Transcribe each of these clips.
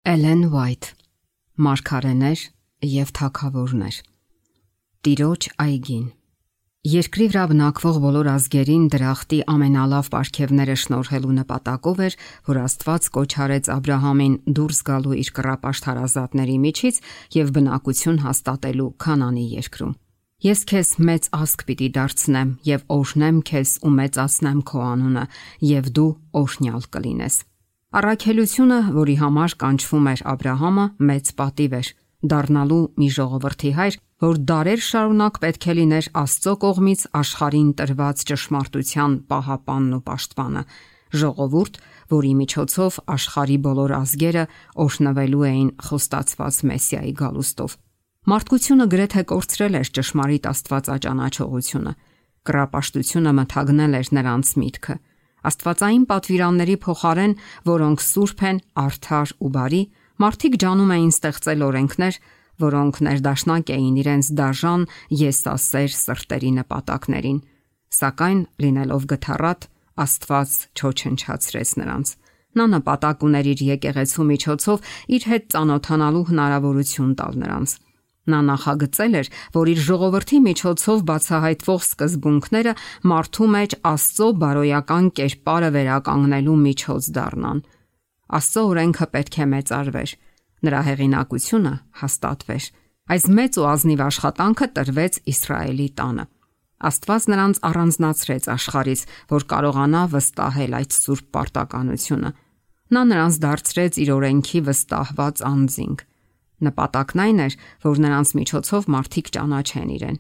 Էլեն Ուայթ, Մարգարեներ և թագավորներ։ Տիրոջ այգին։ Երկրի վրա բնակվող բոլոր ազգերին դրախտի ամենալավ պարգևները շնորհելու նպատակով էր, որ Աստված կոչ արեց Աբրահամին դուրս գալու իր կռապաշտ հարազատների միջից եւ բնակություն հաստատելու Քանանի երկրում։ Ես քեզ մեծ ազգ պիտի դարձնեմ եւ օրհնեմ քեզ ու մեծացնեմ քո անունը, եւ դու օրհնյալ կլինես։ Առաքելությունը, որի համար կանչվում էր Աբրահամը, մեծ պատիվ էր, դառնալու մի ժողովրդի հայր, որ դարեր շարունակ պետք է լիներ Աստծո կողմից աշխարհին տրված ճշմարտության պահապանն ու պաշտպանը, ժողովուրդ, որի միջոցով աշխարհի բոլոր ազգերը օրհնվելու էին խոստացված Մեսիայի գալուստով։ Մարդկությունը գրեթե կորցրել էր ճշմարիտ Աստվածաճանաչողությունը, կռապաշտությունը մթագնել էր նրանց միտքը։ Աստվածային պատվիրանների փոխարեն, որոնք սուրբ են, արդար ու բարի, մարդիկ ջանում էին ստեղծել օրենքներ, որոնք ներդաշնակ էին իրենց դաժան եսասեր սրտերի նպատակներին, սակայն լինելով գթառատ, Աստված չոչնչացրեց նրանց։ Նա նպատակ ուներ իր եկեղեցու միջոցով իր հետ ծանոթանալու հնարավորություն տալ նրանց։ Նա նախագծել էր, որ իր ժողովրդի միջոցով բացահայտվող սկզբունքները մարդու մեջ Աստծո բարոյական կերպարը վերականգնելու միջոց դառնան։ Աստծո օրենքը պետք է մեծարվեր, նրա հեղինակությունը հաստատվեր։ Այս մեծ ու ազնիվ աշխատանքը տրվեց Իսրայելի տանը։ Աստված նրանց առանձնացրեց աշխարհից, որ կարողանա վստահել այդ սուրբ պարտականությունը։ Նա նրանց դարձրեց իր օրենքի վստահված անձինք։ Նպատակն այն էր, որ նրանց միջոցով մարդիկ ճանաչեն իրեն։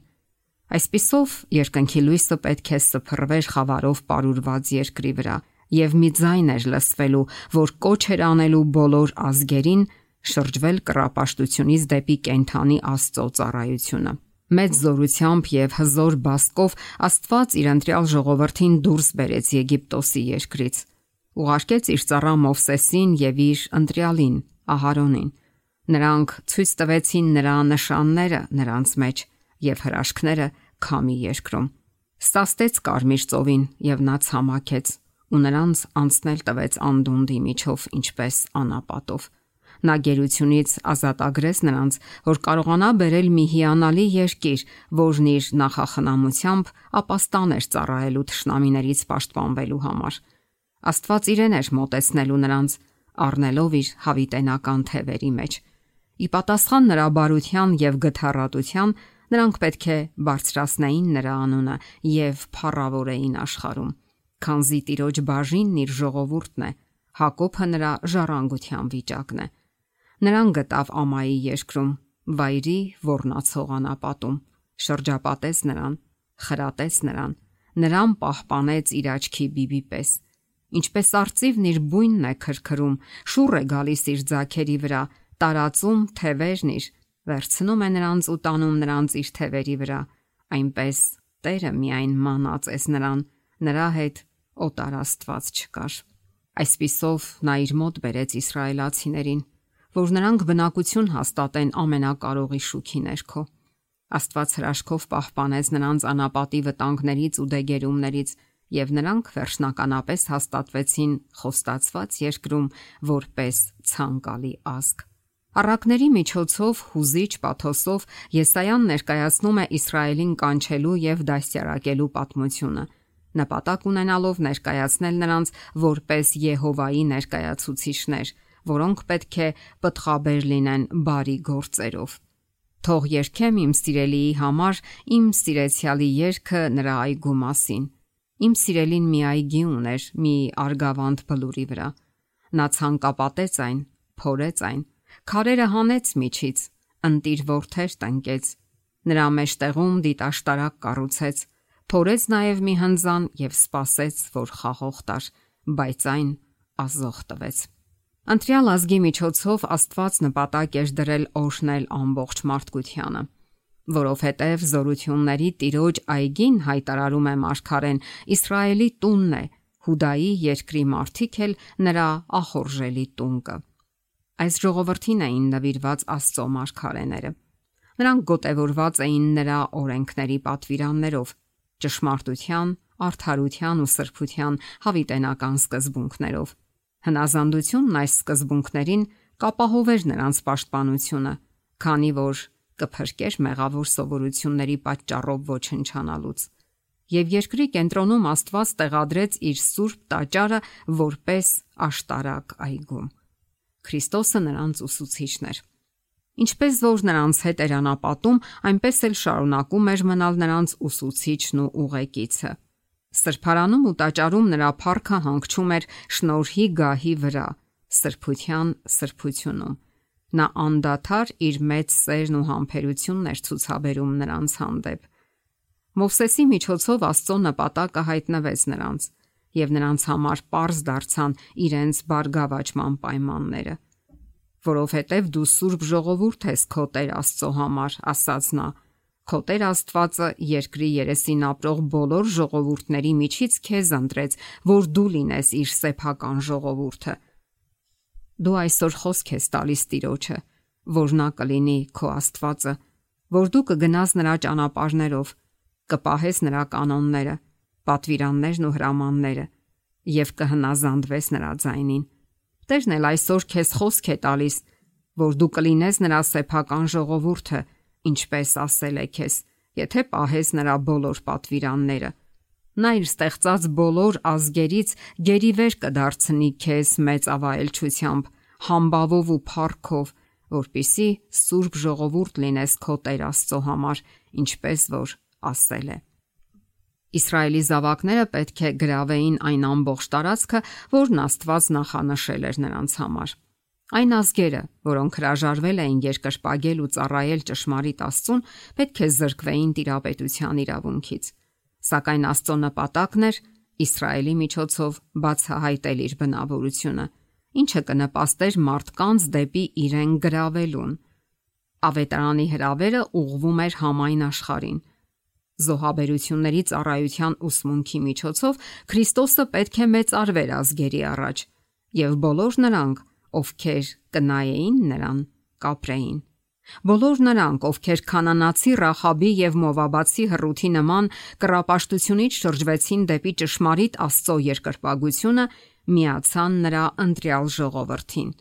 Այսպիսով, երկնքի լույսը պետք է սփռվեր խավարով պարուրված երկրի վրա, եւ մի ձայն էր լսվելու, որ կոչ էր անելու բոլոր ազգերին շրջվել կռապաշտությունից դեպի կենթանի Աստծո ծառայությունը։ Մեծ զորությամբ եւ հզոր բասկով Աստված իր ընտրյալ ժողովրդին դուրս բերեց Եգիպտոսի երկրից։ Ուղարկեց իր ծառա Մովսեսին եւ իր ընտրյալին Ահարոնին։ Նրանք ցույց տվեցին նրա նշանները նրանց մեջ եւ հրաշքները Քամի երկրում։ Սաստեց Կարմիր ծովին եւ նա ցամաքեց ու նրանց անցնել տվեց անդունդի միջով ինչպես անապատով։ Նա գերությունից ազատագրեց նրանց, որ կարողանա բերել մի հիանալի երկիր, որն իր նախախնամությամբ ապաստան էր ծառայելու թշնամիներից պաշտպանվելու համար։ Աստված իրեն էր մոտեցնելու նրանց, առնելով իր հավիտենական թևերի մեջ։ Ի պատասխան նրա բարության եւ գթառատության, նրանք պետք է բարձրացնեին նրա անունը եւ փառավորեին աշխարհում, քանզի Տիրոջ բաժինն իր ժողովուրդն է, Հակոբը նրա ժառանգության վիճակն է։ Նրան գտավ Ամայի երկրում, վայրի ոռնացող անապատում, շրջապատեց նրան, խրատեց նրան պահպանեց իր աչքի բիբի պես։ Ինչպես արծիվն իր բույնն է քրքրում, շուռ է գալիս իր ձագերի վրա, տարածում թևերն իր, վերցնում է նրանց ու տանում նրանց իր թևերի վրա, այնպես Տերը միայն մանածեց նրան, նրա հետ օտար աստված չկար։ Այսպիսով նա իր մոտ բերեց իսրայելացիներին, որ նրանք բնակություն հաստատեն ամենակարողի շուքի ներքո։ Աստված հրաշքով պահպանեց նրանց անապատի վտանգներից ու դեգերումներից, եւ նրանք վերջնականապես հաստատվեցին խոստացված երկրում որպես ցանկալի ազգ։ Առակների միջոցով հուզիչ պաթոսով Եսայան ներկայացնում է Իսրայելին կանչելու եւ դաստիարակելու պատմությունը, նպատակ ունենալով ներկայացնել նրանց որպես Եհովայի ներկայացուցիչներ, որոնք պետք է պտղաբեր լինեն բարի գործերով։ Թող երգեմ իմ սիրելիի համար իմ սիրեցյալի երգը նրա այգու մասին։ Իմ սիրելին մի այգի ուներ մի արգավանդ բլուրի վրա։ Նա ցանկապատեց այն, փորեց այն, քարերը հանեց միջից, ընտիր որդեր տնկեց, նրա մեջտեղում դիտաշտարակ կառուցեց, փորեց նաև մի հնձան եւ սպասեց, որ խաղող տար, բայց այն ազող տվեց։ Ընտրյալ ազգի միջոցով Աստված նպատակ էր դրել օրհնել ամբողջ մարդկությանը, որովհետև զորությունների Տիրոջ այգին հայտարարում է Մարգարեն, Իսրայելի տունն է, Հուդայի երկրի մարդիկ էլ նրա ախորժելի տունկը։ Այս ժողովրդին էին նվիրված Աստծո մարգարեները։ Նրանք գոտևորված էին նրա օրենքների պատվիրաններով, ճշմարտության, արդարության ու սրբության հավիտենական սկզբունքներով։ Հնազանդությունն այս սկզբունքներին կապահովեր նրանց պաշտպանությունը, քանի որ կփրկեր մեղավոր սովորությունների պատճառով ոչնչանալուց։ Եվ երկրի կենտրոնում Աստված տեղադրեց իր սուրբ տաճարը որպես աշտարակ այգում։ Քրիստոսը նրանց ուսուցիչն էր։ Ինչպես որ նրանց հետ էր անապատում, այնպես էլ շարունակում էր մնալ նրանց ուսուցիչն ու ուղեկիցը։ Սրբարանում ու տաճարում նրա փառքը հանգչում էր շնորհի գահի վրա, սրբության սրբությունում։ Նա անդադար իր մեծ սերն ու համբերությունն էր ցուցաբերում նրանց հանդեպ։ Մովսեսի միջոցով Աստծո նպատակը հայտնվեց նրանց, եւ նրանց համար պարզ դարձան իրենց բարգավաճման պայմանները։ Որովհետև դու սուրբ ժողովուրդ ես քո Տեր Աստծո համար, ասաց նա, քո Տեր Աստվածը երկրի երեսին ապրող բոլոր ժողովուրդների միջից քեզ ընտրեց, որ դու լինես իր սեփական ժողովուրդը։ Դու այսօր խոսք ես տալիս Տիրոջը, որ նա կլինի քո Աստվածը, որ դու կգնաս նրա ճանապարհներով, կպահես նրա կանոնները, պատվիրաններն ու հրամանները եւ կհնազանդվես նրա ձայնին։ Տերն էլ այսօր քեզ խոսք է տալիս, որ դու կլինես նրա սեփական ժողովուրդը, ինչպես ասել է քեզ, եթե պահես նրա բոլոր պատվիրանները։ Նա իր ստեղծած բոլոր ազգերից գերիվեր կդարձնի քեզ մեծ ավայելչությամբ, համբավով ու փառքով, որպիսի սուրբ ժողովուրդ լինես քո Տեր Աստծո համար, ինչպես որ ասել է։ Իսրայելի զավակները պետք է գրավեին այն ամբողջ տարածքը, որն Աստված նախանշել էր նրանց համար։ Այն ազգերը, որոնք հրաժարվել էին երկրպագել ու ծառայել ճշմարիտ Աստծուն, պետք է զրկվեին տիրապետության իրավունքից։ Սակայն Աստծո նպատակն էր Իսրայելի միջոցով բացահայտել իր բնավորությունը, ինչը կնպաստեր մարդկանց դեպի իրեն գրավելուն։ Ավետարանի հրավերը ուղղվում էր համայն աշխարհին։ Զոհաբերությունների ծառայության ուսմունքի միջոցով Քրիստոսը պետք է մեծարվեր ազգերի առաջ, եւ բոլոր նրանք, ովքեր կնայեին նրան, կապրեին։ Բոլոր նրանք, ովքեր քանանացի Ռախաբի եւ Մովաբացի հռութի նման կռապաշտությունից շրջվեցին դեպի ճշմարիտ Աստծո երկրպագությունը, միացան նրա ընտրյալ ժողովրդին։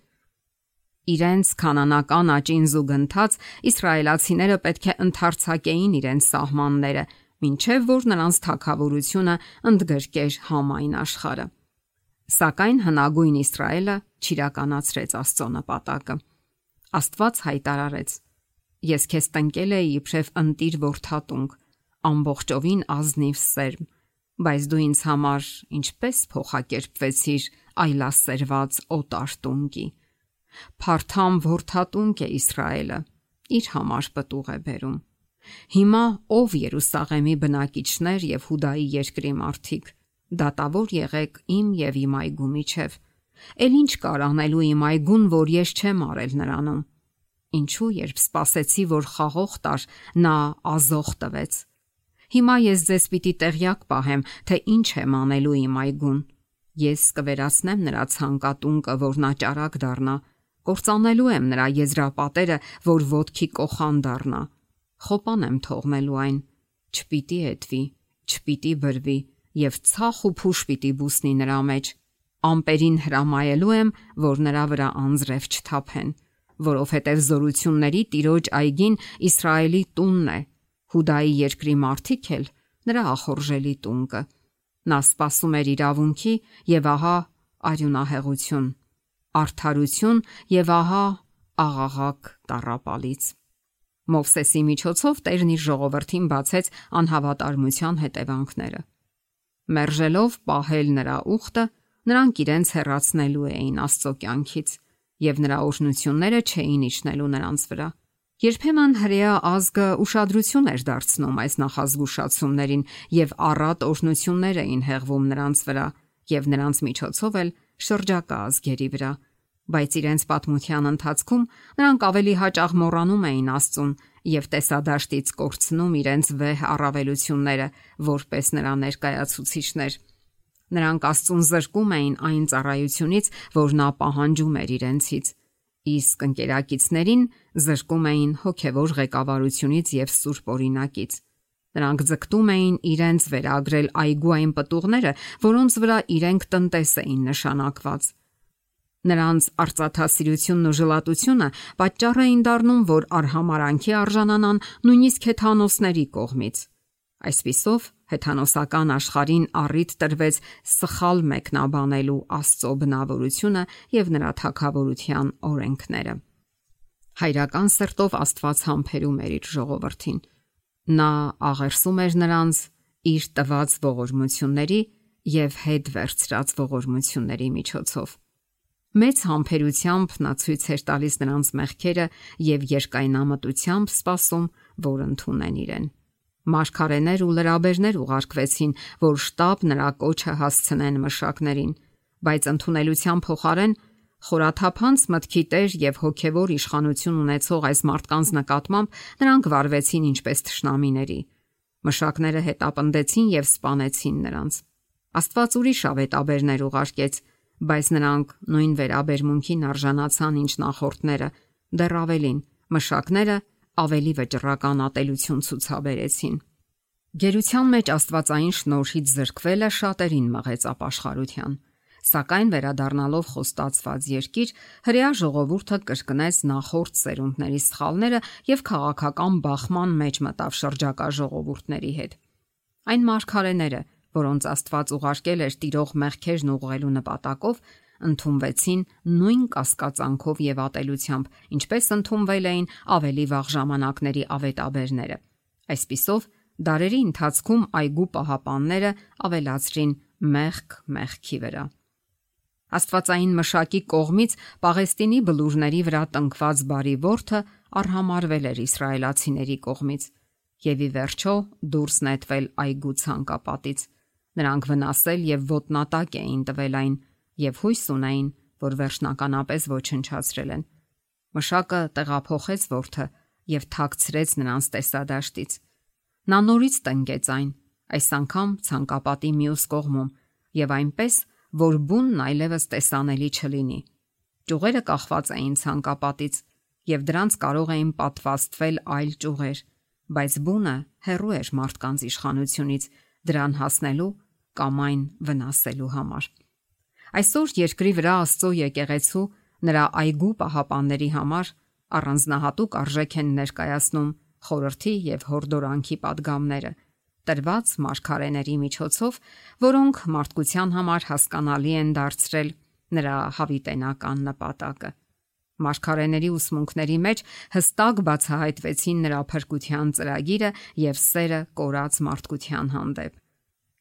Իրենց քանանական աճին զուգընթաց իսրայելացիները պետք է ընդարձակեին իրենց սահմանները, մինչև որ նրանց թագավորությունը ընդգրկեր համայն աշխարհը։ Սակայն հնագույն Իսրայելը չիրականացրեց Աստծո նպատակը։ Աստված հայտարարեց. Ես քեզ տնկել էի իբրև ընտիր որդատունկ, ամբողջովին ազնիվ սերմ, բայց դու ինձ համար ինչպես փոխակերպվեցիր այլասերված օտար տունկի։ Փարթամ որդատունկ է Իսրայելը, իր համար պտուղ է բերում։ Հիմա ով Երուսաղեմի բնակիչներ եւ Հուդայի երկրի մարդիկ, դատավոր եղեք իմ եւ իմ այգու միջև։ Էլ ինչ կար անելու իմ այգուն, որ ես չեմ արել նրանում։ Ինչու երբ սպասեցի, որ խաղող տար, նա ազող տվեց։ Հիմա ես ձեզ պիտի տեղյակ պահեմ, թե ինչ եմ անելու իմ այգուն։ Ես կվերացնեմ նրա ցանկատունկը, որ նա ճարակ դառնա, կործանելու եմ նրա եզրապատերը, որ ոտքի կոխան դառնա։ Խոպան եմ թողնելու այն, չպիտի էտվի, չպիտի բրվի եւ ցախ ու փուշ պիտի բուսնի նրա մեջ։ Ամպերին հրամայելու եմ, որ նրա վրա անձրև չթափեն, որովհետև զորությունների Տիրոջ այգին Իսրայելի տունն է, Հուդայի երկրի մարդիկ էլ նրա ախորժելի տունկը։ Նա սպասում էր իրավունքի եւ ահա արյունահեղություն, արդարություն եւ ահա աղաղակ տառապալից։ Մովսեսի միջոցով Տերն իր ժողովրդին բացեց անհավատարմության հետևանքները։ Մերժելով պահել նրա ուխտը, նրանք իրենց հեռացնելու էին Աստծո կյանքից եւ նրա օրհնությունները չէին իջնելու նրանց վրա։ Երբեմն հրեա ազգը ուշադրություն էր դարձնում այս նախազգուշացումներին եւ առատ օրհնություններ էին հեղվում նրանց վրա եւ նրանց միջոցով էլ շրջակա ազգերի վրա, բայց իրենց պատմության ընթացքում նրանք ավելի հաճախ մոռանում էին Աստծուն եւ տեսադաշտից կորցնում իրենց վեհ առավելությունները որպես նրա ներկայացուցիչներ։ Նրանք Աստծուն զրկում էին այն ծառայությունից, որ նա պահանջում էր իրենցից, իսկ ընկերակիցներին զրկում էին հոգևոր ղեկավարությունից եւ սուրբ օրինակից։ Նրանք ձգտում էին իրենց վերագրել այգու այն պտուղները, որոնց վրա իրենք տնտես էին նշանակված։ Նրանց արծաթասիրությունն ու ժլատությունը պատճառ էին դառնում, որ արհամարանքի արժանանան նույնիսկ հեթանոսների կողմից։ Այսպիսով, հեթանոսական աշխարհին առիթ տրվեց սխալ մեկնաբանելու Աստծո բնավորությունը եւ նրա թագավորության օրենքները։ Հայրական սրտով Աստված համբերում էր իր ժողովրդին։ Նա աղերսում էր նրանց իր տված ողորմությունների եւ հետ վերցրած ողորմությունների միջոցով։ Մեծ համբերությամբ նա ցույց էր տալիս նրանց մեղքերը եւ երկայնամտությամբ սպասում, որ ընդունեն իրեն։ Մարգարեներ ու լրաբերներ ուղարկվեցին, որ շտապ նրա կոչը հասցնեն մշակներին, բայց ընդունելության փոխարեն խորաթափանց մտքի տեր եւ հոգեվոր իշխանություն ունեցող այս մարդկանց նկատմամբ նրանք վարվեցին ինչպես թշնամիների։ Մշակները հետապնդեցին եւ սպանեցին նրանց։ Աստված ուրիշ ավետաբերներ ուղարկեց, բայց նրանք նույն վերաբերմունքին արժանացան ինչ նախորդները, դեռ ավելին, մշակները ավելի վճռական ատելություն ցուցաբերեցին։ Գերության մեջ աստվածային շնորհից զրկվելը շատերին մղեց ապաշխարության, սակայն վերադառնալով խոստացված երկիր, հրեա ժողովուրդը կրկնեց նախորդ սերունդների սխալները եւ քաղաքական բախման մեջ մտավ շրջակա ժողովուրդների հետ։ Այն մարգարեները, որոնց Աստված ուղարկել էր տիրող մեղքերն ուղղելու նպատակով, ընդունվեցին նույն կասկածանքով եւ ատելությամբ, ինչպես ընդունվել էին ավելի վաղ ժամանակների ավետաբերները։ Այսպիսով, դարերի ընթացքում այգու պահապանները ավելացրին մեղք մեղքի վրա։ Աստվածային մշակի կողմից Պաղեստինի բլուրների վրա տնկված բարի որդը արհամարվել էր իսրայելացիների կողմից եւ ի վերջո դուրս նետվել այգու ցանկապատից։ Նրանք վնասել եւ ոտնատակ էին տվել այն եւ հույս ունեին, որ վերջնականապես ոչնչացրել են։ Մշակը տեղափոխեց որդը եւ թաքցրեց նրանց տեսադաշտից։ Նա նորից տնկեց այն, այս անգամ ցանկապատի մյուս կողմում եւ այնպես, որ բունն այլևս տեսանելի չլինի։ Ճյուղերը կախված էին ցանկապատից եւ դրանց կարող էին պատվաստվել այլ ճյուղեր, բայց բունը հեռու էր մարդկանց իշխանությունից դրան հասնելու կամ այն վնասելու համար։ Այսօր երկրի վրա Աստծո եկեղեցու նրա այգու պահապանների համար առանձնահատուկ արժեք են ներկայացնում խորհրդի եւ հորդորանքի падգամները, տրված մարգարեների միջոցով, որոնք մարդկության համար հասկանալի են դարձրել նրա հավիտենական նպատակը։ Մարգարեների ուսմունքների մեջ հստակ բացահայտվեցին նրա փրկության ծրագիրը եւ սերը կորած մարդկության հանդեպ։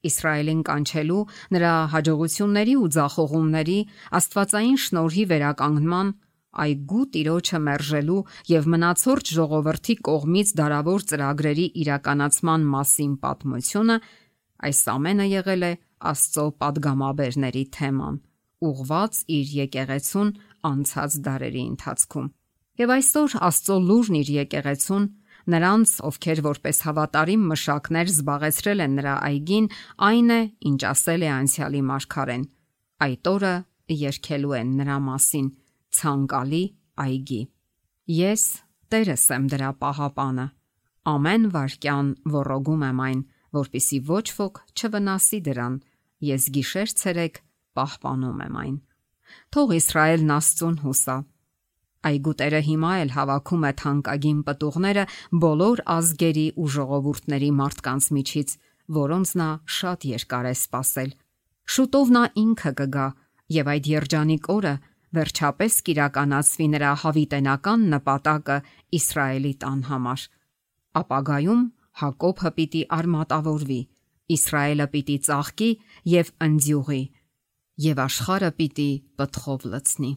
Իսրայելին կանչելու նրա հաջողությունների ու ձախողումների աստվածային շնորհի վերականգնման, այգու տիրոջը մերժելու եւ մնացորդ ժողովրդի կողմից դարավոր ծրագրերի իրականացման մասին պատմությունը, այս ամենը եղել է Աստծո падգամաբերների թեման, ուղված իր եկեղեցուն անցած դարերի ընթացքում։ Եվ այսօր Աստծո լուրն իր եկեղեցուն, նրանց, ովքեր որպես հավատարիմ մշակներ զբաղեցրել են նրա այգին, այն է, ինչ ասել է անցյալի մարգարեն. այդ օրը երգելու են նրա մասին ցանկալի այգի։ Ես Տերս եմ դրա պահապանը, ամեն վայրկյան ոռոգում եմ այն, որպեսզի ոչ ոք չվնասի դրան, ես գիշեր-ցերեկ պահպանում եմ այն։ Թող Իսրայելն Աստծուն հուսա։ Այգու Տերը հիմա էլ հավաքում է թանկագին պտուղները բոլոր ազգերի ու ժողովուրդների մարդկանց միջից, որոնց նա շատ երկար է սպասել։ Շուտով նա ինքը կգա, եւ այդ երջանիկ օրը վերջապես կիրականացվի նրա հավիտենական նպատակը Իսրայելի տան համար։ Ապագայում Հակոբը պիտի արմատավորվի, Իսրայելը պիտի ծաղկի եւ ընձյուղի, եւ աշխարհը պիտի պտղով լցնի։